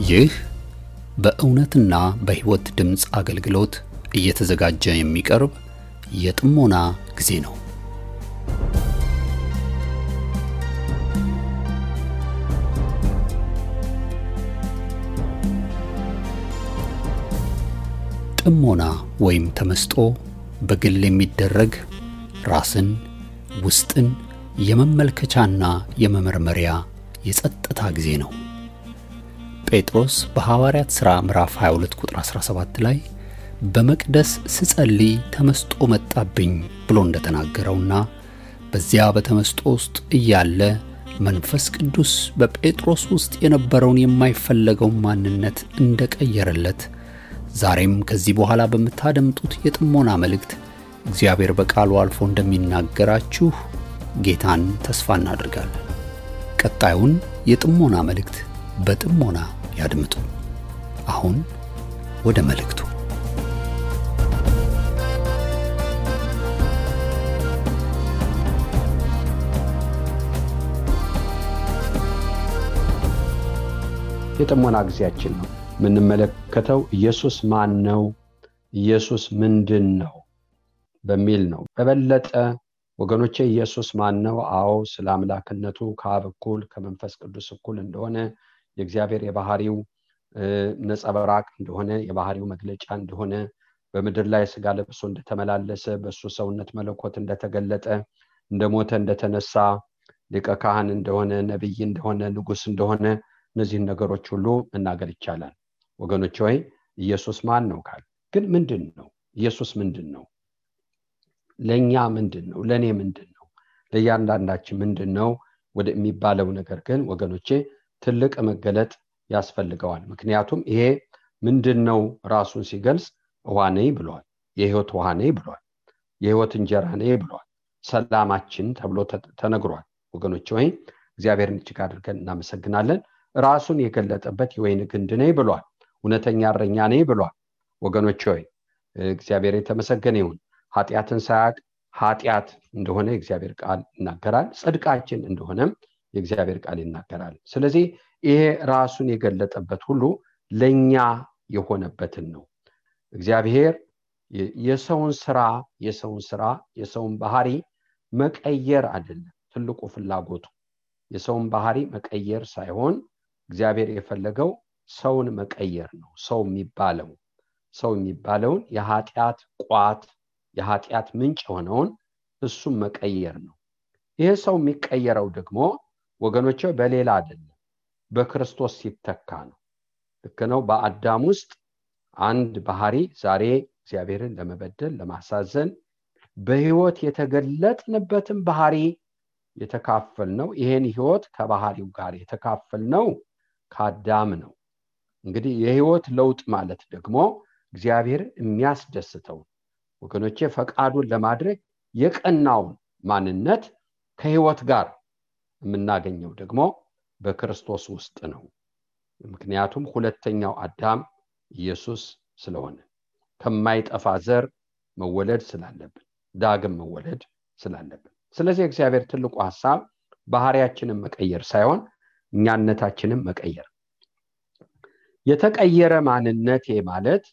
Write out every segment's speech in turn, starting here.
ይህ በእውነትና በሕይወት ድምጽ አገልግሎት እየተዘጋጀ የሚቀርብ የጥሞና ጊዜ ነው። ጥሞና ወይም ተመስጦ በግል የሚደረግ ራስን ውስጥን የመመልከቻና የመመርመሪያ የጸጥታ ጊዜ ነው። ጴጥሮስ በሐዋርያት ሥራ ምዕራፍ 22 ቁጥር 17 ላይ በመቅደስ ስጸልይ ተመስጦ መጣብኝ ብሎ እንደተናገረውና በዚያ በተመስጦ ውስጥ እያለ መንፈስ ቅዱስ በጴጥሮስ ውስጥ የነበረውን የማይፈለገው ማንነት እንደቀየረለት ዛሬም ከዚህ በኋላ በመታደምጡት የጥሞና መልእክት እግዚአብሔር በቃሉ አልፎ እንደሚናገራችሁ ጌታን ተስፋ እናደርጋለን። ቀጣዩን የጥሞና መልእክት በጥሞና ያድምጡ። አሁን ወደ መልእክቱ። የጥሞና ጊዜያችን ነው። የምንመለከተው ኢየሱስ ማን ነው፣ ኢየሱስ ምንድን ነው በሚል ነው። በበለጠ ወገኖቼ ኢየሱስ ማን ነው? አዎ ስለ አምላክነቱ ከአብ እኩል ከመንፈስ ቅዱስ እኩል እንደሆነ የእግዚአብሔር የባህሪው ነጸብራቅ እንደሆነ የባህሪው መግለጫ እንደሆነ በምድር ላይ ሥጋ ለብሶ እንደተመላለሰ በሱ ሰውነት መለኮት እንደተገለጠ እንደሞተ እንደተነሳ ሊቀ ካህን እንደሆነ ነብይ እንደሆነ ንጉስ እንደሆነ እነዚህ ነገሮች ሁሉ መናገር ይቻላል። ወገኖቼ ሆይ ኢየሱስ ማን ነው ካል ግን ምንድነው? ኢየሱስ ምንድነው? ለኛ ምንድነው? ለኔ ምንድነው? ለእያንዳንዳችን ምንድነው ወደ የሚባለው ነገር ግን ወገኖቼ ትልቅ መገለጥ ያስፈልገዋል። ምክንያቱም ይሄ ምንድነው ራሱን ሲገልጽ ውሃ ነኝ ብሏል፣ የሕይወት ውሃ ነኝ ብሏል፣ የሕይወት እንጀራ ነኝ ብሏል፣ ሰላማችን ተብሎ ተነግሯል። ወገኖቼ ሆይ እግዚአብሔርን እጅግ አድርገን እናመሰግናለን። ራሱን የገለጠበት የወይን ግንድ ነኝ ብሏል፣ እውነተኛ እረኛ ነኝ ብሏል። ወገኖቼ ሆይ እግዚአብሔር የተመሰገነ ይሁን። ኃጢአትን ሳያውቅ ኃጢአት እንደሆነ የእግዚአብሔር ቃል ይናገራል፣ ጽድቃችን እንደሆነም የእግዚአብሔር ቃል ይናገራል። ስለዚህ ይሄ ራሱን የገለጠበት ሁሉ ለኛ የሆነበትን ነው። እግዚአብሔር የሰውን ባህሪ መቀየር አይደለም ትልቁ ፍላጎቱ። የሰውን ባህሪ መቀየር ሳይሆን እግዚአብሔር የፈለገው ሰውን መቀየር ነው። ሰው የሚባለውን የኃጢአት ቋት የኃጢአት ምንጭ የሆነውን እሱም መቀየር ነው። ይሄ ሰው የሚቀየረው ደግሞ ወገኖቼ በሌላ አይደለም፣ በክርስቶስ ሲተካ ነው። ልክ ነው። በአዳም ውስጥ አንድ ባህሪ ዛሬ እግዚአብሔርን ለመበደል ለማሳዘን በሕይወት የተገለጥንበትን ባህሪ የተካፈልነው ይሄን ሕይወት ከባህሪው ጋር የተካፈልነው ከአዳም ነው። እንግዲህ የሕይወት ለውጥ ማለት ደግሞ እግዚአብሔር የሚያስደስተው ወገኖቼ ፈቃዱን ለማድረግ የቀናውን ማንነት ከሕይወት ጋር የምናገኘው ደግሞ በክርስቶስ ውስጥ ነው። ምክንያቱም ሁለተኛው አዳም ኢየሱስ ስለሆነ ከማይጠፋ ዘር መወለድ ስላለብን ዳግም መወለድ ስላለብን። ስለዚህ እግዚአብሔር ትልቁ ሐሳብ ባህሪያችንን መቀየር ሳይሆን እኛነታችንን መቀየር። የተቀየረ ማንነት ማለት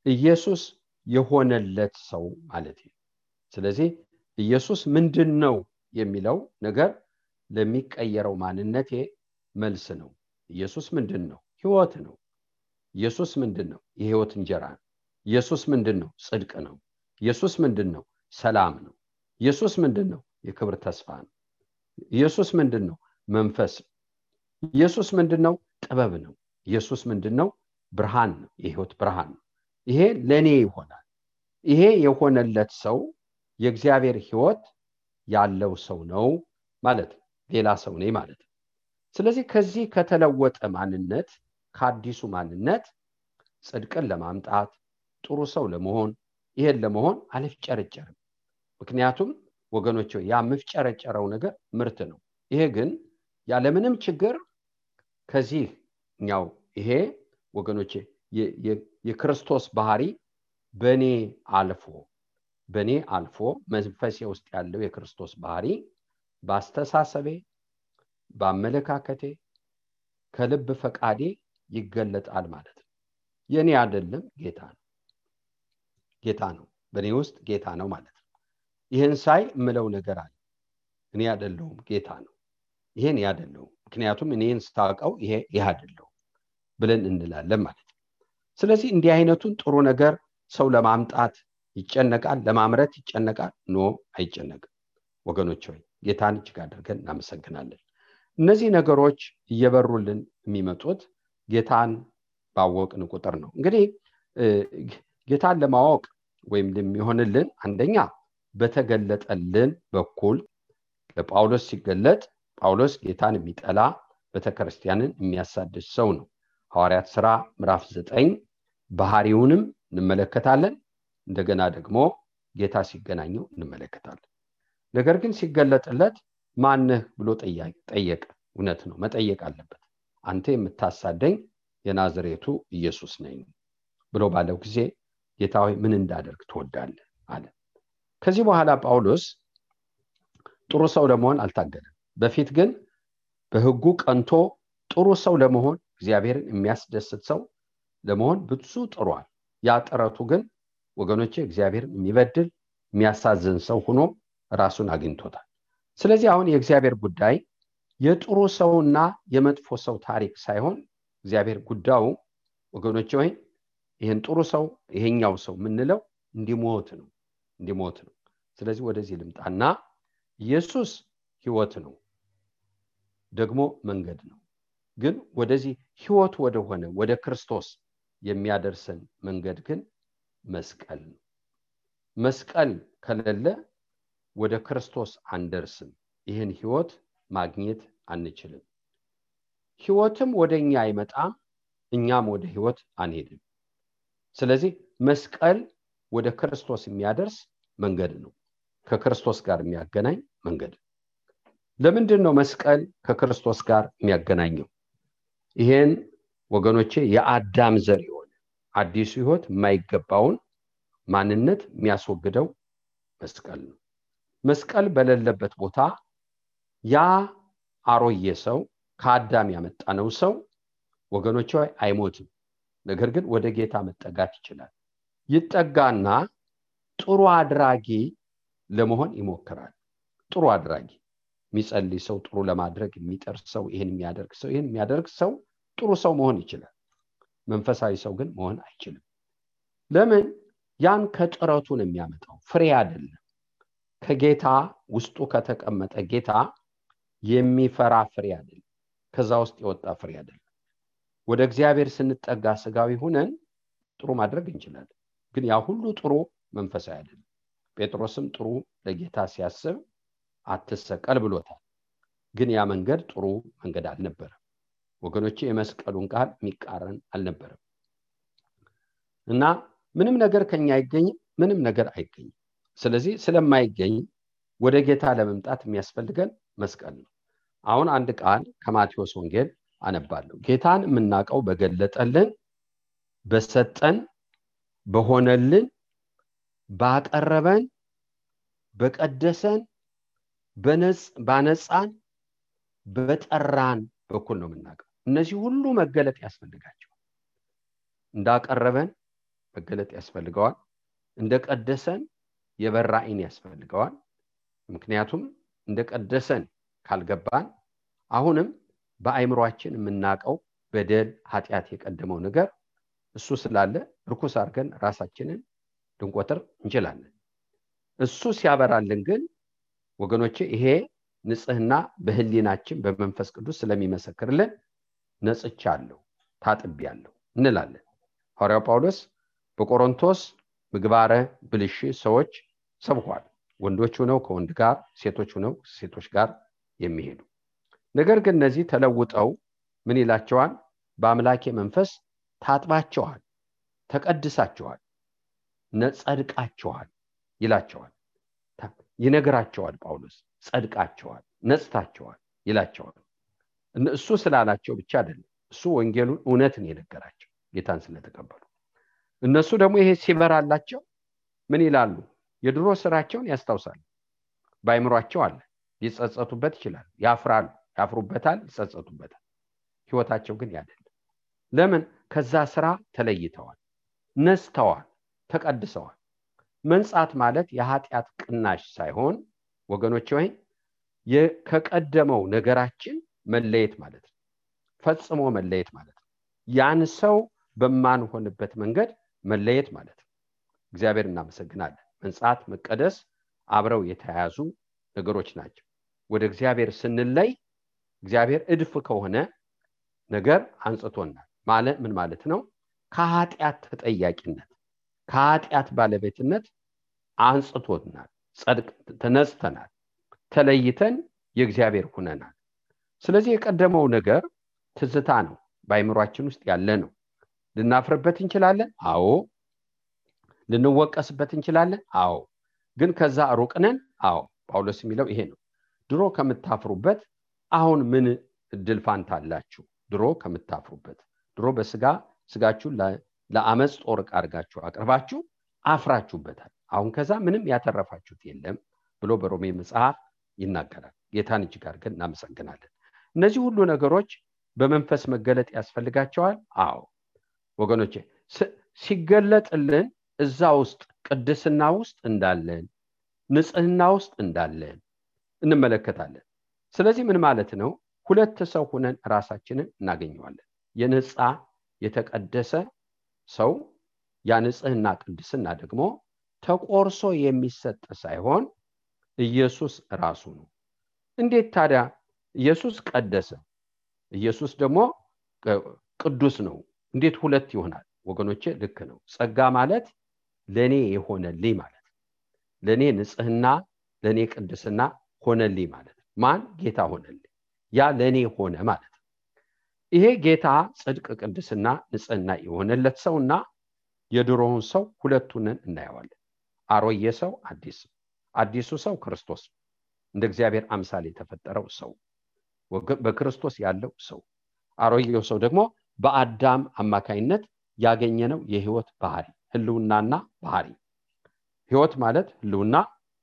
ኢየሱስ የሆነለት ሰው ማለት ነው። ስለዚህ ኢየሱስ ምንድነው የሚለው ነገር ለሚቀየረው ማንነቴ መልስ ነው። ኢየሱስ ምንድነው? ሕይወት ነው። ኢየሱስ ምንድነው? የሕይወት እንጀራ ነው። ኢየሱስ ምንድነው? ጽድቅ ነው። ኢየሱስ ምንድነው? ሰላም ነው። ኢየሱስ ምንድነው? የክብር ተስፋ ነው። ኢየሱስ ምንድነው? መንፈስ ነው። ኢየሱስ ምንድነው? ጥበብ ነው። ኢየሱስ ምንድነው? ብርሃን ነው። የሕይወት ብርሃን ነው። ይሄ ለኔ ይሆናል። ይሄ የሆነለት ሰው የእግዚአብሔር ሕይወት ያለው ሰው ነው ማለት ነው። ሌላ ሰው ነኝ ማለት ነው። ስለዚህ ከዚህ ከተለወጠ ማንነት ከአዲሱ ማንነት ጽድቅን ለማምጣት ጥሩ ሰው ለመሆን ይሄን ለመሆን አልፍጨረጨርም። ምክንያቱም ወገኖቼ ያ ምፍጨረጨረው ነገር ምርት ነው። ይሄ ግን ያለ ምንም ችግር ከዚህኛው ይሄ ወገኖቼ የክርስቶስ ባህሪ በኔ አልፎ መንፈሴ ውስጥ ያለው የክርስቶስ ባህሪ በአስተሳሰቤ በአመለካከቴ ከልብ ፈቃዴ ይገለጣል ማለት ነው። የኔ አይደለም ጌታ ነው በኔ ውስጥ ጌታ ነው ማለት ነው። ይሄን ሳይ ምለው ነገር አለ። እኔ አይደለሁም ጌታ ነው፣ ይሄን አይደለሁም፣ ምክንያቱም እኔን ስታውቀው ይሄ አይደለሁም ብለን እንላለን ማለት ነው። ስለዚህ እንዲህ አይነቱን ጥሩ ነገር ሰው ለማምጣት ይጨነቃል፣ ለማምረት ይጨነቃል? ኖ አይጨነቅም። ወገኖች ሆይ ጌታን እጅግ አድርገን እናመሰግናለን። እነዚህ ነገሮች እየበሩልን የሚመጡት ጌታን ባወቅን ቁጥር ነው። እንግዲህ ጌታን ለማወቅ ወይም ለሚሆንልን አንደኛ በተገለጠልን በኩል ለጳውሎስ ሲገለጥ ጳውሎስ ጌታን የሚጠላ ቤተክርስቲያንን የሚያሳድድ ሰው ነው። ሐዋርያት ሥራ ምዕራፍ 9 ባህሪውንም እንመለከታለን። እንደገና ደግሞ ጌታ ሲገናኘው እንመለከታለን። ነገር ግን ሲገለጥለት ማነህ ብሎ ጠየቀ። እውነት ነው፣ መጠየቅ አለበት። አንተ የምታሳደኝ የናዝሬቱ ኢየሱስ ነኝ ብሎ ባለው ጊዜ ጌታ ሆይ ምን እንዳደርግ ትወዳለህ አለ። ከዚህ በኋላ ጳውሎስ ጥሩ ሰው ለመሆን አልታገለም። በፊት ግን በሕጉ ቀንቶ ጥሩ ሰው ለመሆን እግዚአብሔርን የሚያስደስት ሰው ለመሆን ብዙ ጥሯል። ያ ጥረቱ ግን ወገኖቼ እግዚአብሔርን የሚበድል የሚያሳዝን ሰው ሆኖ ራሱን አግኝቶታል። ስለዚህ አሁን የእግዚአብሔር ጉዳይ የጥሩ ሰውና የመጥፎ ሰው ታሪክ ሳይሆን እግዚአብሔር ጉዳዩ ወገኖቼ ሆይ ይሄን ጥሩ ሰው ይሄኛው ሰው ምንለው እንዲሞት ነው። ስለዚህ ወደዚህ ልምጣና ኢየሱስ ሕይወት ነው፣ ደግሞ መንገድ ነው። ግን ወደዚህ ሕይወት ወደሆነ ወደ ክርስቶስ የሚያደርሰን መንገድ ግን መስቀል ነው። መስቀል ከሌለ ወደ ክርስቶስ አንደርስም። ይህን ሕይወት ማግኘት አንችልም። ሕይወትም ወደኛ አይመጣም፣ እኛም ወደ ሕይወት አንሄድም። ስለዚህ መስቀል ወደ ክርስቶስ የሚያደርስ መንገድ ነው፣ ከክርስቶስ ጋር የሚያገናኝ መንገድ። ለምንድን ነው መስቀል ከክርስቶስ ጋር የሚያገናኘው? ይሄን ወገኖቼ የአዳም ዘር የሆነ አዲሱ ሕይወት የማይገባውን ማንነት የሚያስወግደው መስቀል ነው። መስቀል በሌለበት ቦታ ያ አሮጌ ሰው ከአዳም ያመጣነው ሰው ወገኖቼ አይሞትም። ነገር ግን ወደ ጌታ መጠጋት ይችላል። ይጠጋና ጥሩ አድራጊ ለመሆን ይሞክራል። ጥሩ አድራጊ የሚጸልይ ሰው፣ ጥሩ ለማድረግ የሚጠር ሰው፣ ይሄን የሚያደርግ ሰው ጥሩ ሰው መሆን ይችላል። መንፈሳዊ ሰው ግን መሆን አይችልም። ለምን? ያን ከጥረቱ ነው የሚያመጣው፣ ፍሬ አይደለም። ከጌታ ውስጡ ከተቀመጠ ጌታ የሚፈራ ፍሬ አይደለም፣ ከዛ ውስጥ የወጣ ፍሬ አይደለም። ወደ እግዚአብሔር ስንጠጋ ስጋዊ ሆነን ጥሩ ማድረግ እንችላለን፣ ግን ያ ሁሉ ጥሩ መንፈሳዊ አይደለም። ጴጥሮስም ጥሩ ለጌታ ሲያስብ አትሰቀል ብሎታል፣ ግን ያ መንገድ ጥሩ መንገድ አልነበረም። ወገኖቼ የመስቀሉን ቃል የሚቃረን አልነበረም። እና ምንም ነገር ከኛ አይገኝም፣ ምንም ነገር አይገኝም። ስለዚህ ስለማይገኝ ወደ ጌታ ለመምጣት የሚያስፈልገን መስቀል ነው። አሁን አንድ ቃል ከማቴዎስ ወንጌል አነባለሁ። ጌታን የምናውቀው በገለጠልን፣ በሰጠን፣ በሆነልን፣ ባቀረበን፣ በቀደሰን፣ ባነጻን፣ በጠራን በኩል ነው የምናውቀው። እነዚህ ሁሉ መገለጥ ያስፈልጋቸዋል። እንዳቀረበን መገለጥ ያስፈልገዋል፣ እንደቀደሰን የበራ ዓይን ያስፈልገዋል። ምክንያቱም እንደቀደሰን ካልገባን አሁንም በአይምሮአችን የምናውቀው በደል፣ ኃጢአት የቀደመው ነገር እሱ ስላለ ርኩስ አድርገን ራሳችንን ልንቆጥር እንችላለን። እሱ ሲያበራልን ግን ወገኖቼ ይሄ ንጽህና በህሊናችን በመንፈስ ቅዱስ ስለሚመሰክርልን ነጽቻለሁ፣ ታጥቤያለሁ እንላለን። ሐዋርያው ጳውሎስ በቆሮንቶስ ምግባረ ብልሽ ሰዎች ሰብኳል። ወንዶች ሆነው ከወንድ ጋር፣ ሴቶች ሆነው ሴቶች ጋር የሚሄዱ ነገር ግን እነዚህ ተለውጠው ምን ይላቸዋል? በአምላኬ መንፈስ ታጥባቸዋል፣ ተቀድሳቸዋል፣ ነጸድቃቸዋል ይላቸዋል። ይነግራቸዋል ጳውሎስ። ጸድቃቸዋል፣ ነጽታቸዋል ይላቸዋል። እሱ ስላላቸው ብቻ አይደለም፣ እሱ ወንጌሉን እውነትን የነገራቸው ጌታን ስለተቀበሉ። እነሱ ደግሞ ይሄ ሲበራላቸው ምን ይላሉ? የድሮ ስራቸውን ያስታውሳሉ። ባይምሯቸው አለ፣ ሊጸጸቱበት ይችላል። ያፍራሉ፣ ያፍሩበታል፣ ይጸጸቱበታል። ህይወታቸው ግን ያደለ። ለምን? ከዛ ስራ ተለይተዋል፣ ነስተዋል፣ ተቀድሰዋል። መንጻት ማለት የኃጢአት ቅናሽ ሳይሆን ወገኖቼ ሆይ ከቀደመው ነገራችን መለየት ማለት ነው። ፈጽሞ መለየት ማለት ነው። ያን ሰው በማንሆንበት መንገድ መለየት ማለት ነው። እግዚአብሔር እናመሰግናለን። መንጻት መቀደስ አብረው የተያያዙ ነገሮች ናቸው። ወደ እግዚአብሔር ስንለይ እግዚአብሔር እድፍ ከሆነ ነገር አንጽቶናል ማለት ምን ማለት ነው? ከኃጢአት ተጠያቂነት ከኃጢአት ባለቤትነት አንጽቶናል። ጸድቅ ተነስተናል፣ ተለይተን የእግዚአብሔር ሆነናል። ስለዚህ የቀደመው ነገር ትዝታ ነው፣ በአይምሯችን ውስጥ ያለ ነው። ልናፍርበት እንችላለን፣ አዎ። ልንወቀስበት እንችላለን፣ አዎ። ግን ከዛ ሩቅ ነን፣ አዎ። ጳውሎስ የሚለው ይሄ ነው። ድሮ ከምታፍሩበት አሁን ምን እድል ፋንታ አላችሁ? ድሮ ከምታፍሩበት፣ ድሮ ስጋችሁ ለአመጽ ጦር ዕቃ አድርጋችሁ አቅርባችሁ አፍራችሁበታል። አሁን ከዛ ምንም ያተረፋችሁት የለም ብሎ በሮሜ መጽሐፍ ይናገራል። ጌታን እጅግ አድርገን እናመሰግናለን። እነዚህ ሁሉ ነገሮች በመንፈስ መገለጥ ያስፈልጋቸዋል። አዎ ወገኖቼ፣ ሲገለጥልን እዛ ውስጥ ቅድስና ውስጥ እንዳለን፣ ንጽህና ውስጥ እንዳለን እንመለከታለን። ስለዚህ ምን ማለት ነው? ሁለት ሰው ሆነን ራሳችንን እናገኘዋለን። የነጻ የተቀደሰ ሰው፣ ያ ንጽህና ቅድስና ደግሞ ተቆርሶ የሚሰጥ ሳይሆን ኢየሱስ ራሱ ነው። እንዴት ታዲያ ኢየሱስ ቀደሰ፣ ኢየሱስ ደግሞ ቅዱስ ነው? እንዴት ሁለት ይሆናል? ወገኖቼ ልክ ነው። ጸጋ ማለት ለኔ የሆነልኝ ማለት፣ ለኔ ንጽህና፣ ለኔ ቅድስና ሆነልኝ ማለት። ማን? ጌታ ሆነልኝ። ያ ለኔ ሆነ ማለት። ይሄ ጌታ ጽድቅ፣ ቅድስና፣ ንጽህና የሆነለት ሰውና የድሮውን ሰው ሁለቱን እናየዋለን። አሮጌ ሰው፣ አዲሱ ሰው ክርስቶስ፣ እንደ እግዚአብሔር አምሳል የተፈጠረው ሰው፣ በክርስቶስ ያለው ሰው። አሮጌው ሰው ደግሞ በአዳም አማካይነት ያገኘነው የህይወት ባህሪ፣ ህልውናና ባህሪ። ህይወት ማለት ህልውና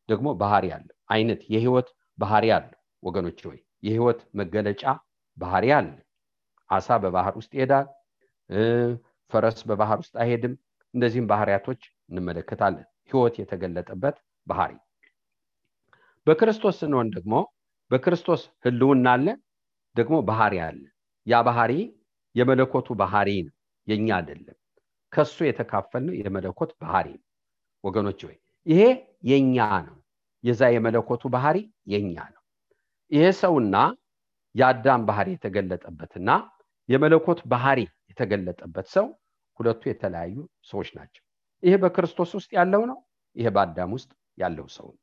ደግሞ ባህሪ ያለው አይነት የህይወት ባህሪ ያለው ወገኖች ሆይ የህይወት መገለጫ ባህሪ አለ። አሳ በባህር ውስጥ ይሄዳል፣ ፈረስ በባህር ውስጥ አይሄድም። እንደዚህም ባህሪያቶች እንመለከታለን። ህይወት የተገለጠበት ባህሪ። በክርስቶስ ስንሆን ደግሞ በክርስቶስ ህልውና አለ፣ ደግሞ ባህሪ አለ። ያ ባህሪ የመለኮቱ ባህሪ ነው፣ የኛ አይደለም። ከሱ የተካፈልነው የመለኮት ባህሪ ነው ወገኖች ሆይ ይሄ የኛ ነው። የዛ የመለኮቱ ባህሪ የኛ ነው። ይሄ ሰውና የአዳም ባህሪ የተገለጠበትና የመለኮት ባህሪ የተገለጠበት ሰው ሁለቱ የተለያዩ ሰዎች ናቸው። ይሄ በክርስቶስ ውስጥ ያለው ነው፣ ይሄ በአዳም ውስጥ ያለው ሰው ነው።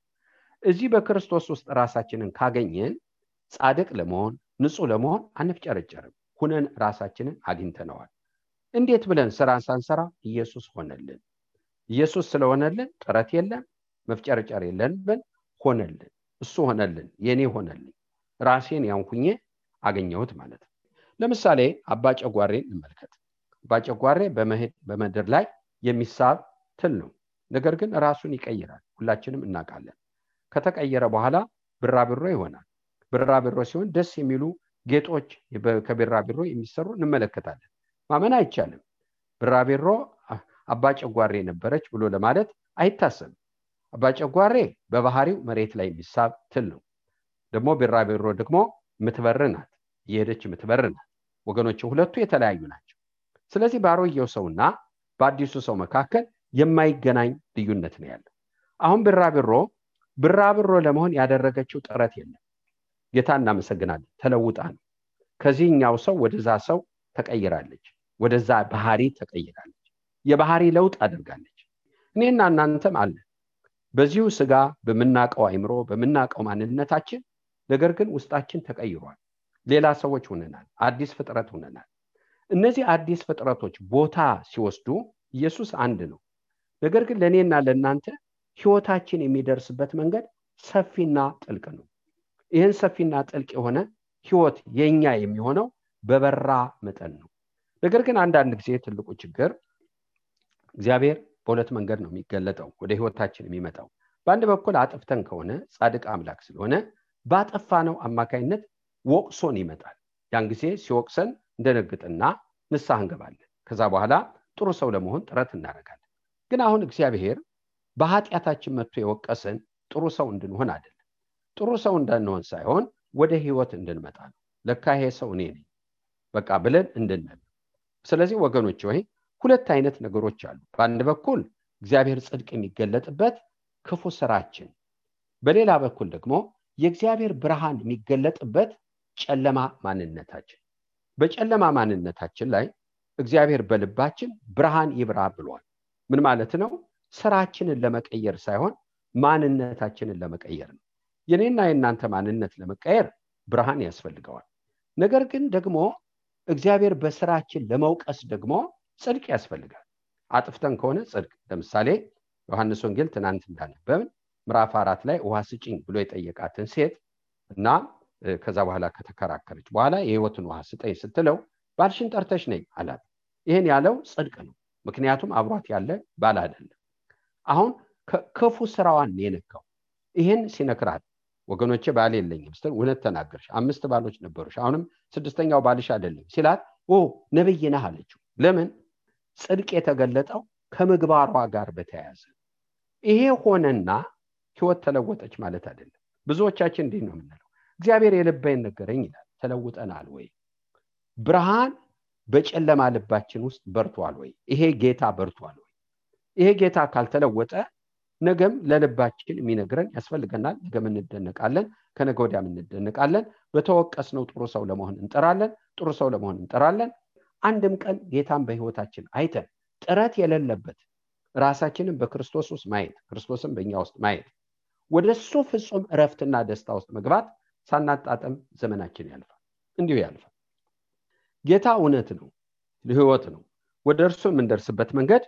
እዚህ በክርስቶስ ውስጥ ራሳችንን ካገኘን ጻድቅ ለመሆን ንጹህ ለመሆን አንፍጨረጨርም። ሁነን ራሳችንን አግኝተነዋል። እንዴት ብለን ስራን ሳንሰራ ኢየሱስ ሆነልን። ኢየሱስ ስለሆነልን ጥረት የለም፣ መፍጨረጨር የለብን። ሆነልን፣ እሱ ሆነልን፣ የኔ ሆነልኝ። ራሴን ያንኩኜ አገኘሁት ማለት ነው። ለምሳሌ አባ ጨጓሬን እንመልከት። አባ ጨጓሬ በምድር ላይ የሚሳብ ትል ነው። ነገር ግን ራሱን ይቀይራል፣ ሁላችንም እናውቃለን። ከተቀየረ በኋላ ብራብሮ ይሆናል። ብራብሮ ሲሆን ደስ የሚሉ ጌጦች ከብራብሮ የሚሰሩ እንመለከታለን። ማመን አይቻልም። ብራብሮ አባ ጨጓሬ ነበረች ብሎ ለማለት አይታሰብም። አባ ጨጓሬ በባህሪው መሬት ላይ የሚሳብ ትል ነው። ደግሞ ብራብሮ ደግሞ ምትበርናት፣ የሄደች ምትበርናት። ወገኖች ሁለቱ የተለያዩ ናቸው። ስለዚህ በአሮጌው ሰውና በአዲሱ ሰው መካከል የማይገናኝ ልዩነት ነው ያለው። አሁን ብራብሮ ለመሆን ያደረገችው ጥረት የለም። ጌታ እናመሰግናለን። ተለውጣ ነው ከዚህኛው ሰው ወደዛ ሰው ተቀይራለች፣ ወደዛ ባህሪ ተቀይራለች። የባህሪ ለውጥ አድርጋለች። እኔና እናንተም አለ በዚሁ ስጋ በመናቀው አይምሮ በመናቀው ማንነታችን፣ ነገር ግን ውስጣችን ተቀይሯል። ሌላ ሰዎች ሆነናል፣ አዲስ ፍጥረት ሆነናል። እነዚህ አዲስ ፍጥረቶች ቦታ ሲወስዱ ኢየሱስ አንድ ነው። ነገር ግን ለኔና ለናንተ ህይወታችን የሚደርስበት መንገድ ሰፊና ጥልቅ ነው። ይህን ሰፊና ጥልቅ የሆነ ህይወት የኛ የሚሆነው በበራ መጠን ነው። ነገር ግን አንዳንድ ጊዜ ትልቁ ችግር እግዚአብሔር በሁለት መንገድ ነው የሚገለጠው ወደ ህይወታችን የሚመጣው። በአንድ በኩል አጥፍተን ከሆነ ጻድቅ አምላክ ስለሆነ ባጠፋነው አማካይነት ወቅሶን ይመጣል። ያን ጊዜ ሲወቅሰን እንደነግጥና ንስሐ እንገባለን። ከዛ በኋላ ጥሩ ሰው ለመሆን ጥረት እናደርጋለን። ግን አሁን እግዚአብሔር በኃጢአታችን መጥቶ የወቀሰን ጥሩ ሰው እንድንሆን አይደለም። ጥሩ ሰው እንዳንሆን ሳይሆን ወደ ህይወት እንድንመጣ ነው። ለካ ይሄ ሰው እኔ ነኝ በቃ ብለን እንድንል። ስለዚህ ወገኖች ሆይ ሁለት አይነት ነገሮች አሉ። በአንድ በኩል እግዚአብሔር ጽድቅ የሚገለጥበት ክፉ ስራችን፣ በሌላ በኩል ደግሞ የእግዚአብሔር ብርሃን የሚገለጥበት ጨለማ ማንነታችን። በጨለማ ማንነታችን ላይ እግዚአብሔር በልባችን ብርሃን ይብራ ብሏል። ምን ማለት ነው? ስራችንን ለመቀየር ሳይሆን ማንነታችንን ለመቀየር ነው። የኔና የናንተ ማንነት ለመቀየር ብርሃን ያስፈልገዋል። ነገር ግን ደግሞ እግዚአብሔር በስራችን ለመውቀስ ደግሞ ጽድቅ ያስፈልጋል። አጥፍተን ከሆነ ጽድቅ፣ ለምሳሌ ዮሐንስ ወንጌል ትናንት እንዳነበብን ምዕራፍ 4 ላይ ውሃ ስጪኝ ብሎ የጠየቃትን ሴት እና ከዛ በኋላ ከተከራከረች በኋላ የህይወትን ውሃ ስጠኝ ስትለው ባልሽን ጠርተሽ ነኝ አላት። ይሄን ያለው ጽድቅ ነው፣ ምክንያቱም አብሯት ያለ ባል አይደለም። አሁን ክፉ ስራዋን የነካው ይሄን ሲነክራት ወገኖቼ ባል የለኝም ስትል እውነት ተናገርሽ፣ 5 ባሎች ነበሩሽ፣ አሁንም 6ኛው ባልሽ አይደለም ሲላት ነብይ ነህ አለችው። ለምን? ጽድቅ የተገለጠው ከምግባሯ ጋር በተያያዘ። ይሄ ሆነና ህይወት ተለወጠች ማለት አይደለም። ብዙዎቻችን እንዲህ ነው የምንለው፣ እግዚአብሔር የልቤን ነገረኝ ይላል። ተለውጠናል ወይ? ብርሃን በጨለማ ልባችን ውስጥ በርቷል ወይ? ይሄ ጌታ በርቷል ወይ? ይሄ ጌታ ካልተለወጠ ነገም ለልባችን የሚነግረን ያስፈልገናል። ነገም እንደነቃለን፣ ከነገ ወዲያም እንደነቃለን። በተወቀስነው ጥሩ ሰው ለመሆን እንጠራለን፣ ጥሩ ሰው ለመሆን እንጠራለን። አንድም ቀን ጌታን በህይወታችን አይተን ጥረት የሌለበት ራሳችንን በክርስቶስ ውስጥ ማየት፣ ክርስቶስን በእኛ ውስጥ ማየት፣ ወደሱ ፍጹም እረፍትና ደስታ ውስጥ መግባት ሳናጣጥም ዘመናችን ያልፋል። እንዲሁ ያልፋል። ጌታ እውነት ነው፣ ህይወት ነው። ወደ እርሱ የምንደርስበት መንገድ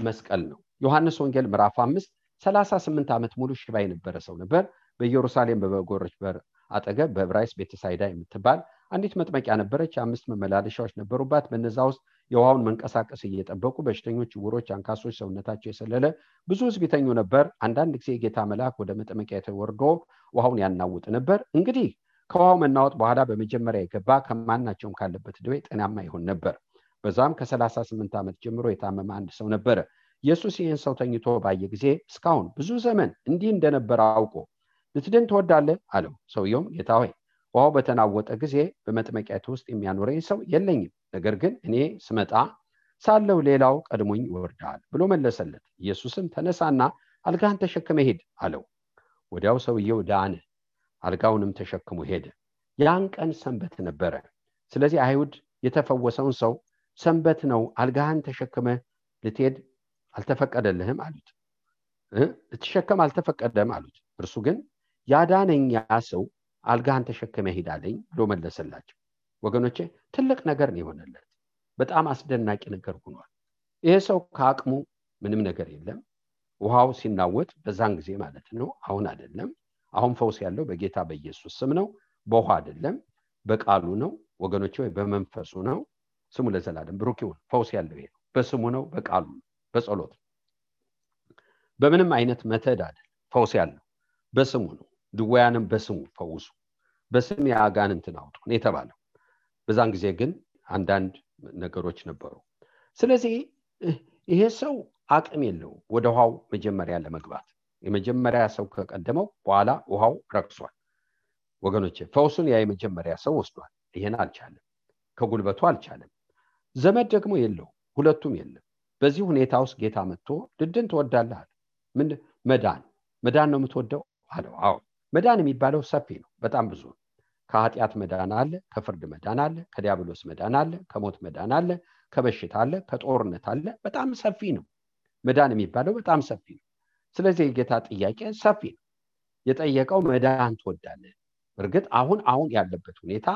መስቀል ነው። ዮሐንስ ወንጌል ምዕራፍ 5 38 ዓመት ሙሉ ሽባ የነበረ ሰው ነበር። በኢየሩሳሌም በበጎች በር አጠገብ በዕብራይስጥ ቤተሳይዳ የምትባል አንዲት መጥመቂያ ነበረች። 5 መመላለሻዎች ነበሩባት። በነዛ ውስጥ የውሃውን መንቀሳቀስ እየጠበቁ በሽተኞች፣ ዕውሮች፣ አንካሶች፣ ሰውነታቸው የሰለለ ብዙ ሕዝብ ይተኙ ነበር። አንዳንድ ጊዜ የጌታ መልአክ ወደ መጥመቂያ ተወርዶ ውሃውን ያናውጥ ነበር። እንግዲህ ከውሃው መናወጥ በኋላ በመጀመሪያ የገባ ከማናቸውም ካለበት ደዌ ጤናማ ይሆን ነበር። በዛም ከ38 ዓመት ጀምሮ የታመመ አንድ ሰው ነበረ። ኢየሱስ ይህን ሰው ተኝቶ ባየ ጊዜ እስካሁን ብዙ ዘመን እንዲህ እንደነበረ አውቆ ልትድን ትወዳለህ አለው። ሰውየውም ጌታ ሆይ ውሃው በተናወጠ ጊዜ በመጥመቂያቱ ውስጥ የሚያኖረኝ ሰው የለኝም፣ ነገር ግን እኔ ስመጣ ሳለው ሌላው ቀድሞኝ ይወርዳል ብሎ መለሰለት። ኢየሱስም ተነሳና አልጋህን ተሸክመ ሂድ አለው። ወዲያው ሰውየው ዳነ፣ አልጋውንም ተሸክሞ ሄደ። ያን ቀን ሰንበት ነበረ። ስለዚህ አይሁድ የተፈወሰውን ሰው ሰንበት ነው፣ አልጋህን ተሸክመ ልትሄድ አልተፈቀደልህም አሉት። ልትሸከም አልተፈቀደም አሉት። እርሱ ግን ያዳነኝ ያ ሰው አልጋህን ተሸክመ ሂድ አለኝ ብሎ መለሰላቸው። ወገኖቼ ትልቅ ነገር ነው የሆነለት። በጣም አስደናቂ ነገር ሆኗል። ይሄ ሰው ከአቅሙ ምንም ነገር የለም። ውሃው ሲናወጥ በዛን ጊዜ ማለት ነው፣ አሁን አይደለም። አሁን ፈውስ ያለው በጌታ በኢየሱስ ስም ነው፣ በውሃ አይደለም፣ በቃሉ ነው ወገኖቼ፣ ወይ በመንፈሱ ነው። ስሙ ለዘላለም ብሩክ ይሁን። ፈውስ ያለው ይሄ በስሙ ነው፣ በቃሉ ነው፣ በጸሎት በምንም አይነት መተድ አይደለም። ፈውስ ያለው በስሙ ነው። ድውያንም በስሙ ፈውሱ፣ በስም ያጋንንትን አውጡ ነው የተባለው። በዛን ጊዜ ግን አንዳንድ ነገሮች ነበሩ። ስለዚህ ይሄ ሰው አቅም የለው ወደ ውሃው መጀመሪያ ለመግባት። የመጀመሪያ ሰው ከቀደመው በኋላ ውሃው ረክሷል። ወገኖቼ ፈውሱን ያ የመጀመሪያ ሰው ወስዷል። ይሄን አልቻለም፣ ከጉልበቱ አልቻለም። ዘመድ ደግሞ የለው፣ ሁለቱም የለም። በዚህ ሁኔታ ውስጥ ጌታ መጥቶ ልድን ትወዳለህ አለ። ምን መዳን ነው የምትወደው አለው። አዎ መዳን የሚባለው ሰፊ ነው፣ በጣም ብዙ ነው። ከኃጢአት መዳን አለ፣ ከፍርድ መዳን አለ፣ ከዲያብሎስ መዳን አለ፣ ከሞት መዳን አለ፣ ከበሽታ አለ፣ ከጦርነት አለ። በጣም ሰፊ ነው መዳን የሚባለው፣ በጣም ሰፊ ነው። ስለዚህ የጌታ ጥያቄ ሰፊ ነው። የጠየቀው መዳን ትወዳለህ። እርግጥ አሁን ያለበት ሁኔታ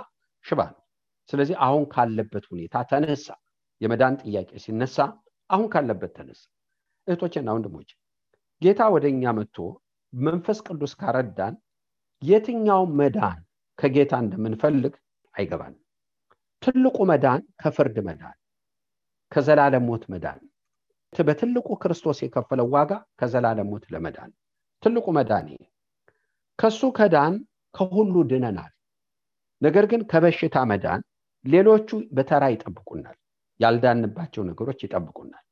ሽባ ነው። ስለዚህ አሁን ካለበት ሁኔታ ተነሳ። የመዳን ጥያቄ ሲነሳ አሁን ካለበት ተነሳ። እህቶቼና ወንድሞቼ ጌታ ወደኛ መጥቶ መንፈስ ቅዱስ ካረዳን የትኛው መዳን ከጌታ እንደምንፈልግ አይገባንም። ትልቁ መዳን ከፍርድ መዳን፣ ከዘላለም ሞት መዳን፣ በትልቁ ክርስቶስ የከፈለው ዋጋ ከዘላለም ሞት ለመዳን ትልቁ መዳን ይሄ። ከሱ ከዳን ከሁሉ ድነናል። ነገር ግን ከበሽታ መዳን ሌሎቹ በተራ ይጠብቁናል። ያልዳንባቸው ነገሮች ይጠብቁናል።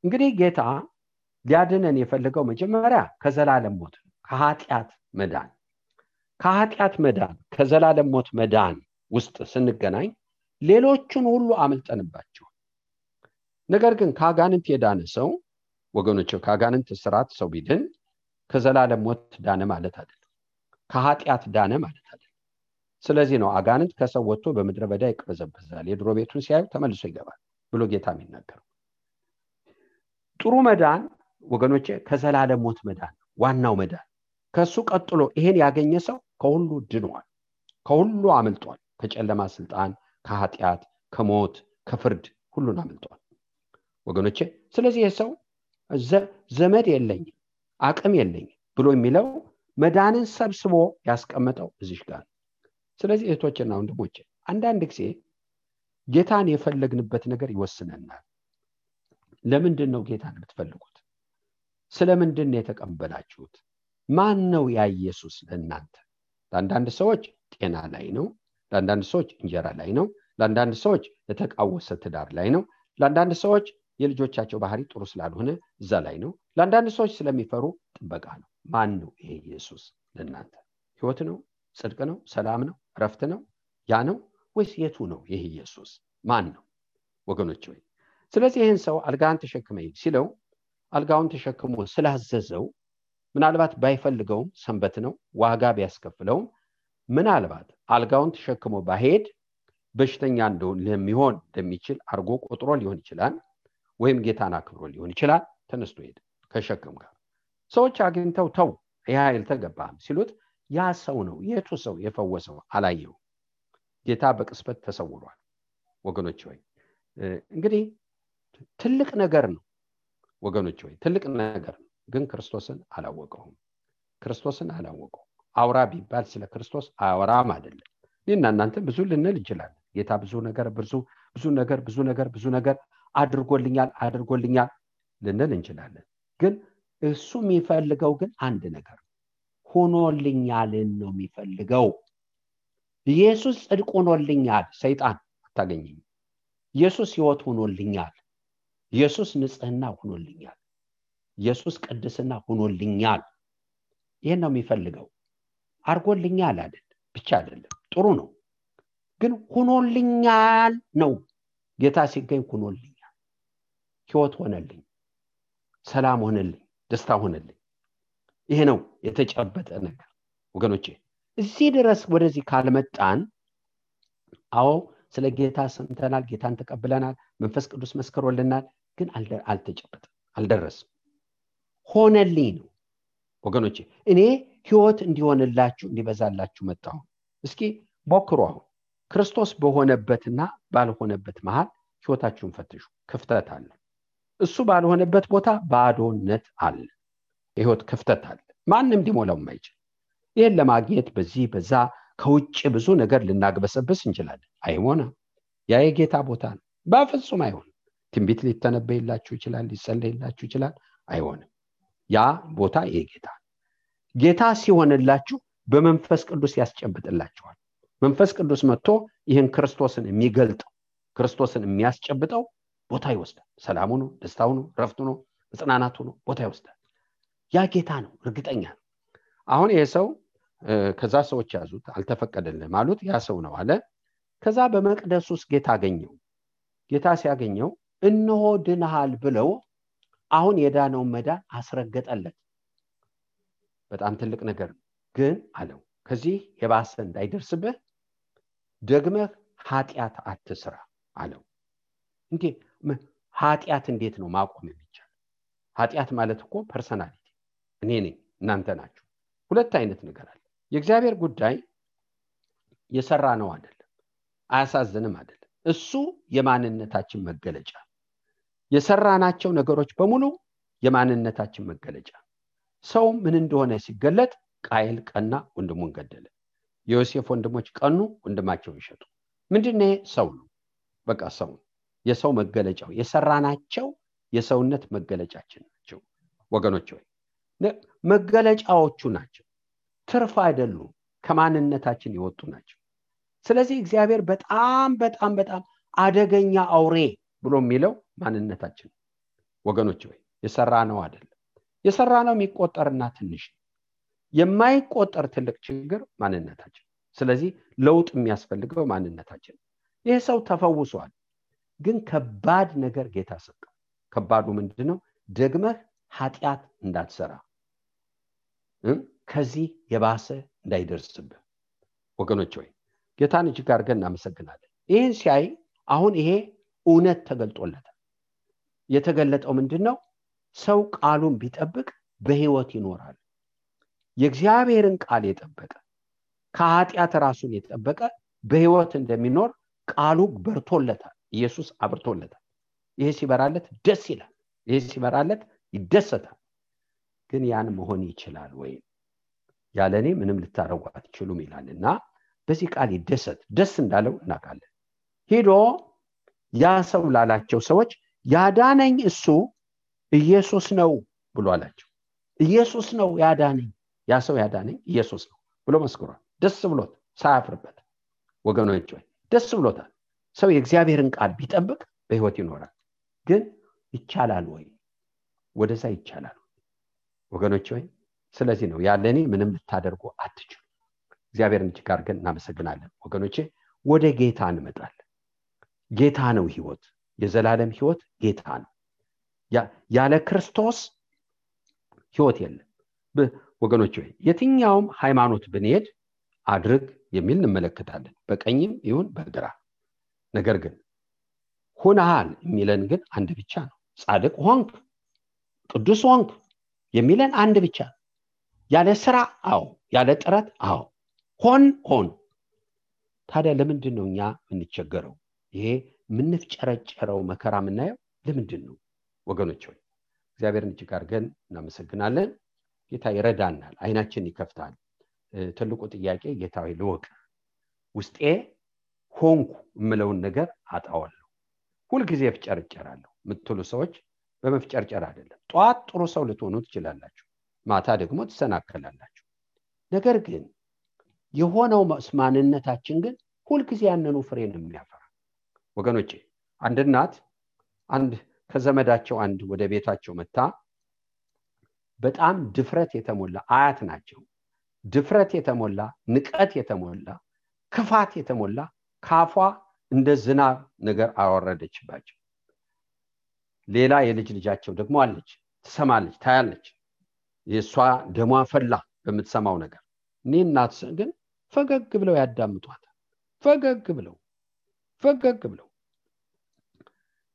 እንግዲህ ጌታ ሊያድነን የፈለገው መጀመሪያ ከዘላለም ሞት ከኃጢአት መዳን ከዘላለም ሞት መዳን ውስጥ ስንገናኝ ሌሎቹን ሁሉ አመልጠንባቸው። ነገር ግን ከአጋንንት የዳነ ሰው ወገኖች ከአጋንንት ስራት ሰው ቢድን ከዘላለም ሞት ዳነ ማለት አይደለም፣ ከኃጢአት ዳነ ማለት አይደለም። ስለዚህ ነው አጋንንት ከሰው ወጥቶ በምድረ በዳ ይቅበዘበዛል፣ የድሮ ቤቱን ሲያዩ ተመልሶ ይገባል ብሎ ጌታ የሚናገረው። ጥሩ መዳን ወገኖቼ ከዘላለም ሞት መዳን ዋናው መዳን። ከሱ ቀጥሎ ይሄን ያገኘ ሰው ከሁሉ ድኗል፣ ከሁሉ አመልጧል፣ ከጨለማ ስልጣን፣ ከኃጢአት፣ ከሞት፣ ከፍርድ ሁሉን አመልጧል ወገኖቼ። ስለዚህ የሰው ዘመድ የለኝ አቅም የለኝ ብሎ የሚለው መዳንን ሰብስቦ ያስቀመጠው እዚህ ጋር። ስለዚህ እህቶችና ወንድሞቼ አንዳንድ ጊዜ ጌታን የፈለግንበት ነገር ይወስነናል። ለምንድን ነው ጌታን የምትፈልጉት? ስለምንድን ነው የተቀበላችሁት? ማን ነው ያ ኢየሱስ ለእናንተ? ለአንዳንድ ሰዎች ጤና ላይ ነው፣ ለአንዳንድ ሰዎች እንጀራ ላይ ነው፣ ለአንዳንድ ሰዎች የተቃወሰ ትዳር ላይ ነው፣ ለአንዳንድ ሰዎች የልጆቻቸው ባህሪ ጥሩ ስላልሆነ እዛ ላይ ነው፣ ለአንዳንድ ሰዎች ስለሚፈሩ ጥበቃ ነው። ማን ነው ይሄ ኢየሱስ ለእናንተ? ህይወት ነው? ጽድቅ ነው? ሰላም ነው? ረፍት ነው? ያ ነው ወይስ የቱ ነው ይሄ ኢየሱስ? ማን ነው ወገኖች ወይ? ስለዚህ ይህን ሰው አልጋን ተሸክመኝ ሲለው አልጋውን ተሸክሞ ስላዘዘው ምናልባት ባይፈልገውም ሰንበት ነው ዋጋ ቢያስከፍለውም ምናልባት አልጋውን ተሸክሞ ባሄድ በሽተኛ እንደሚሆን እንደሚችል አርጎ ቆጥሮ ሊሆን ይችላል፣ ወይም ጌታን አክብሮ ሊሆን ይችላል። ተነስቶ ሄደ ከሸክም ጋር። ሰዎች አግኝተው ተው ይሄ አልተገባም ሲሉት ያ ሰው ነው የቱ ሰው የፈወሰው አላየው። ጌታ በቅስበት ተሰውሯል ወገኖች ወይ። እንግዲህ ትልቅ ነገር ነው ወገኖች ወይ፣ ትልቅ ነገር ነው። ግን ክርስቶስን አላወቀውም። አውራ ቢባል ስለ ክርስቶስ አወራም አይደለም። እኔና እናንተ ብዙ ልንል እንችላለን። ጌታ ብዙ ነገር አድርጎልኛል ልንል እንችላለን። ግን እሱ የሚፈልገው ግን አንድ ነገር ሆኖልኛልን ነው የሚፈልገው። ኢየሱስ ጽድቅ ሆኖልኛል፣ ሰይጣን አታገኘኝ። ኢየሱስ ሕይወት ሆኖልኛል፣ ኢየሱስ ንጽህና ሆኖልኛል፣ ኢየሱስ ቅድስና ሆኖልኛል። ይሄን ነው የሚፈልገው። አርጎልኛል አይደል ብቻ አይደለም፣ ጥሩ ነው ግን ሆኖልኛል ነው። ጌታ ሲገኝ ሆኖልኛል፣ ሕይወት ሆነልኝ፣ ሰላም ሆነልኝ፣ ደስታ ሆነልኝ። ይሄ ነው የተጨበጠ ነገር ወገኖቼ። እዚህ ድረስ ወደዚህ ካልመጣን አዎ ስለ ጌታ ሰምተናል፣ ጌታን ተቀብለናል፣ መንፈስ ቅዱስ መስክሮልናል፣ ግን አልተጨበጠም፣ አልደረስም። ሆነልኝ ነው ወገኖቼ። እኔ ሕይወት እንዲሆንላችሁ እንዲበዛላችሁ መጣሁ። እስኪ ሞክሩ። አሁን ክርስቶስ በሆነበትና ባልሆነበት መሃል ሕይወታችሁን ፈትሹ። ክፍተት አለ። እሱ ባልሆነበት ቦታ ባዶነት አለ፣ የሕይወት ክፍተት አለ፣ ማንም ሊሞላው የማይችል። ይሄን ለማግኘት በዚህ በዛ ከውጭ ብዙ ነገር ልናግበሰብስ እንችላለን። አይሆንም። ያ የጌታ ቦታ ነው። በፍጹም አይሆንም። ትንቢት ሊተነበይላችሁ ይችላል፣ ሊጸለይላችሁ ይችላል። አይሆንም። ያ ቦታ የጌታ ጌታ ሲሆንላችሁ በመንፈስ ቅዱስ ያስጨብጥላችኋል። መንፈስ ቅዱስ መጥቶ ይህን ክርስቶስን የሚገልጠው ክርስቶስን የሚያስጨብጠው ቦታ ይወስዳል። ሰላሙ ነው፣ ደስታው ነው፣ ረፍቱ ነው፣ መጽናናቱ ነው፣ ቦታ ይወስዳል። ያ ጌታ ነው፣ እርግጠኛ ነው። አሁን ይሄ ሰው ከዛ ሰዎች ያዙት፣ አልተፈቀደልህም አሉት። ያ ሰው ነው አለ። ከዛ በመቅደስ ውስጥ ጌታ አገኘው። ጌታ ሲያገኘው እነሆ ድነሃል ብለው አሁን የዳነውን መዳን አስረገጠለት። በጣም ትልቅ ነገር ነው። ግን አለው ከዚህ የባሰ እንዳይደርስብህ ደግመህ ኃጢአት አትስራ አለው። እንዴ ኃጢአት እንዴት ነው ማቆም የሚቻል? ኃጢአት ማለት እኮ ፐርሰናሊቲ፣ እኔ ነኝ፣ እናንተ ናችሁ። ሁለት አይነት ነገር አለ። የእግዚአብሔር ጉዳይ የሰራ ነው አይደለም፣ አያሳዝንም አይደለም። እሱ የማንነታችን መገለጫ፣ የሰራናቸው ነገሮች በሙሉ የማንነታችን መገለጫ። ሰው ምን እንደሆነ ሲገለጥ ቃየል ቀና፣ ወንድሙን ገደለ። የዮሴፍ ወንድሞች ቀኑ፣ ወንድማቸውን ሸጡ። ምንድነው? ሰው ነው። በቃ ሰው፣ የሰው መገለጫው፣ የሰራናቸው የሰውነት መገለጫችን ናቸው ወገኖች ሆይ። መገለጫዎቹ ናቸው፣ ትርፍ አይደሉም፣ ከማንነታችን የወጡ ናቸው። ስለዚህ እግዚአብሔር በጣም በጣም በጣም አደገኛ አውሬ ብሎ የሚለው ማንነታችን ወገኖች ወይ የሰራነው አይደለም። የሰራነው የሚቆጠርና ትንሽ የማይቆጠር ትልቅ ችግር ማንነታችን። ስለዚህ ለውጥ የሚያስፈልገው ማንነታችን። ይሄ ሰው ተፈውሷል፣ ግን ከባድ ነገር ጌታ ሰጠው። ከባዱ ምንድነው? ደግመህ ኃጢአት እንዳትሰራ፣ ከዚህ የባሰ እንዳይደርስብህ። ወገኖች ወይ ጌታን እጅግ አድርገን እናመሰግናለን። ይህን ሲያይ አሁን ይሄ እውነት ተገልጦለታል። የተገለጠው ምንድነው? ሰው ቃሉን ቢጠብቅ በህይወት ይኖራል። የእግዚአብሔርን ቃል የጠበቀ ከኃጢአት ራሱን የጠበቀ በህይወት እንደሚኖር ቃሉ በርቶለታል። ኢየሱስ አብርቶለታል። ይሄ ሲበራለት ደስ ይላል። ይሄ ሲበራለት ይደሰታል። ግን ያን መሆን ይችላል ወይ? ያለኔ ምንም ልታረጉ አትችሉም ይላልና በዚህ ቃል ይደሰት። ደስ እንዳለው እናውቃለን። ሄዶ ያ ሰው ላላቸው ሰዎች ያዳነኝ እሱ ኢየሱስ ነው ብሎ አላቸው። ኢየሱስ ነው ያዳነኝ፣ ያ ሰው ያዳነኝ ኢየሱስ ነው ብሎ መስክሯል። ደስ ብሎት ሳያፍርበት። ወገኖች ሆይ ደስ ብሎታል። ሰው የእግዚአብሔርን ቃል ቢጠብቅ በህይወት ይኖራል። ግን ይቻላል ወይ? ወደዛ ይቻላል ወገኖች ሆይ። ስለዚህ ነው ያለኔ ምንም ልታደርጉ አትችሉ። እግዚአብሔርን እጅግ አድርገን እናመሰግናለን። ወገኖቼ ወደ ጌታ እንመጣለን። ጌታ ነው ህይወት፣ የዘላለም ህይወት ጌታ ነው። ያለ ክርስቶስ ህይወት የለም። ወገኖች ሆይ የትኛውም ሃይማኖት ብንሄድ አድርግ የሚል እንመለከታለን፣ በቀኝም ይሁን በግራ። ነገር ግን ሆነሃል የሚለን ግን አንድ ብቻ ነው። ጻድቅ ሆንክ፣ ቅዱስ ሆንክ የሚለን አንድ ብቻ። ያለ ስራ አዎ፣ ያለ ጥረት አዎ፣ ሆን። ታዲያ ለምንድን ነው እኛ የምንቸገረው? ይሄ የምንፍጨረጨረው መከራ የምናየው ለምንድን ነው? ወገኖች ሆይ እግዚአብሔርን እጅግ አድርገን እናመሰግናለን። ጌታ ይረዳናል፣ አይናችን ይከፍታል። ትልቁ ጥያቄ ጌታ ሆይ ልወቅ፣ ውስጤ ሆንኩ የምለውን ነገር አጣዋለሁ፣ ሁልጊዜ ፍጨርጨራለሁ የምትሉ ሰዎች በመፍጨርጨር አይደለም። ጧት ጥሩ ሰው ልትሆኑ ትችላላችሁ፣ ማታ ደግሞ ትሰናከላላችሁ። ነገር ግን የሆነው ማንነታችን ግን ሁልጊዜ ያንኑ ፍሬ ነው የሚያፈራ። ወገኖቼ አንድ እናት ከዘመዳቸው ወደ ቤታቸው መጣ። በጣም ድፍረት የተሞላ አያት ናቸው። ድፍረት የተሞላ ንቀት የተሞላ ክፋት የተሞላ ካፏ እንደ ዝናብ ነገር አወረደችባቸው። ሌላ የልጅ ልጃቸው ደግሞ አለች፣ ትሰማለች፣ ታያለች። የሷ ደሟ ፈላ በምትሰማው ነገር። እኔ እናት ግን ፈገግ ብለው ያዳምጧታል። ፈገግ ብለው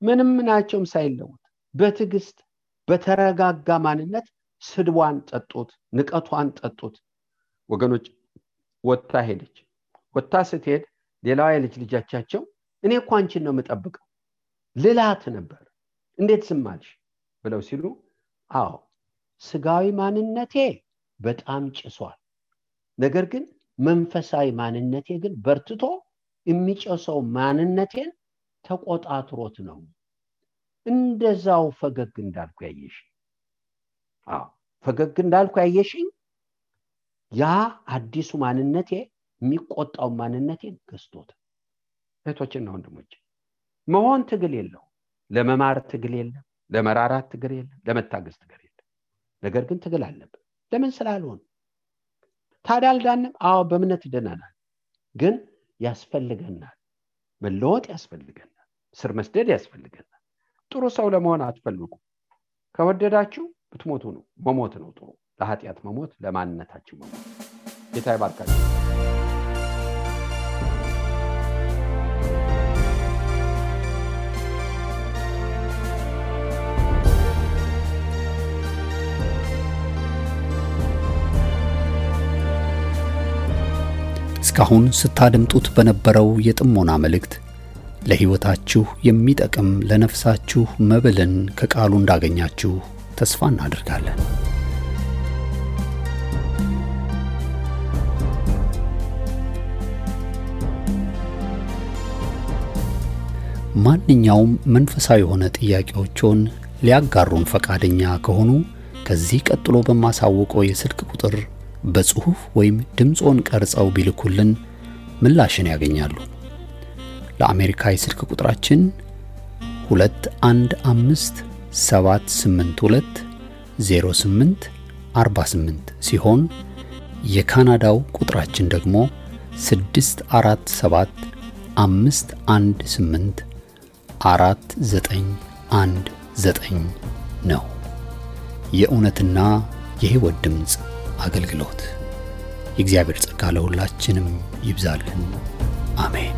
ምንም ናቸውም ሳይለውጥ በትዕግስት በተረጋጋ ማንነት ስድቧን ጠጡት፣ ንቀቷን ጠጡት። ወገኖች ወጣ ሄደች። ወጣ ስትሄድ ሌላው የልጅ ልጃቸው እኔ እኮ አንቺን ነው የምጠብቀው ልላት ነበር፣ እንዴት ዝም አልሽ ብለው ሲሉ አዎ ስጋዊ ማንነቴ በጣም ጭሷል፣ ነገር ግን መንፈሳዊ ማንነቴ ግን በርትቶ የሚጨሰው ማንነቴን ተቆጣጥሮት ነው እንደዛው ፈገግ እንዳልኩ ያየሽ። ፈገግ እንዳልኩ ያየሽኝ ያ አዲሱ ማንነቴ የሚቆጣው ማንነቴን ገዝቶት። እህቶችና ወንድሞች መሆን ትግል የለው፣ ለመማር ትግል የለም፣ ለመራራት ትግል የለም፣ ለመታገስ ትግል የለም። ነገር ግን ትግል አለበት። ለምን ስላልሆነ ታዲያ አልዳንም? አዎ በእምነት ድነናል፣ ግን ያስፈልገናል፣ መለወጥ ያስፈልገናል፣ ስር መስደድ ያስፈልገናል። ጥሩ ሰው ለመሆን አትፈልጉ። ከወደዳችሁ ብትሞቱ ነው፣ መሞት ነው ጥሩ። ለኃጢአት መሞት፣ ለማንነታችሁ መሞት። ጌታ ይባርካችሁ። እስካሁን ስታደምጡት በነበረው የጥሞና መልእክት ለሕይወታችሁ የሚጠቅም ለነፍሳችሁ መብልን ከቃሉ እንዳገኛችሁ ተስፋ እናደርጋለን። ማንኛውም መንፈሳዊ የሆነ ጥያቄዎችን ሊያጋሩን ፈቃደኛ ከሆኑ ከዚህ ቀጥሎ በማሳወቀው የስልክ ቁጥር በጽሁፍ ወይም ድምጾን ቀርጸው ቢልኩልን ምላሽን ያገኛሉ። ለአሜሪካ የስልክ ቁጥራችን 2157820848 ሲሆን የካናዳው ቁጥራችን ደግሞ 6475184919 ነው። የእውነትና የሕይወት ድምጽ አገልግሎት። የእግዚአብሔር ጸጋ ለሁላችንም ይብዛልን። አሜን።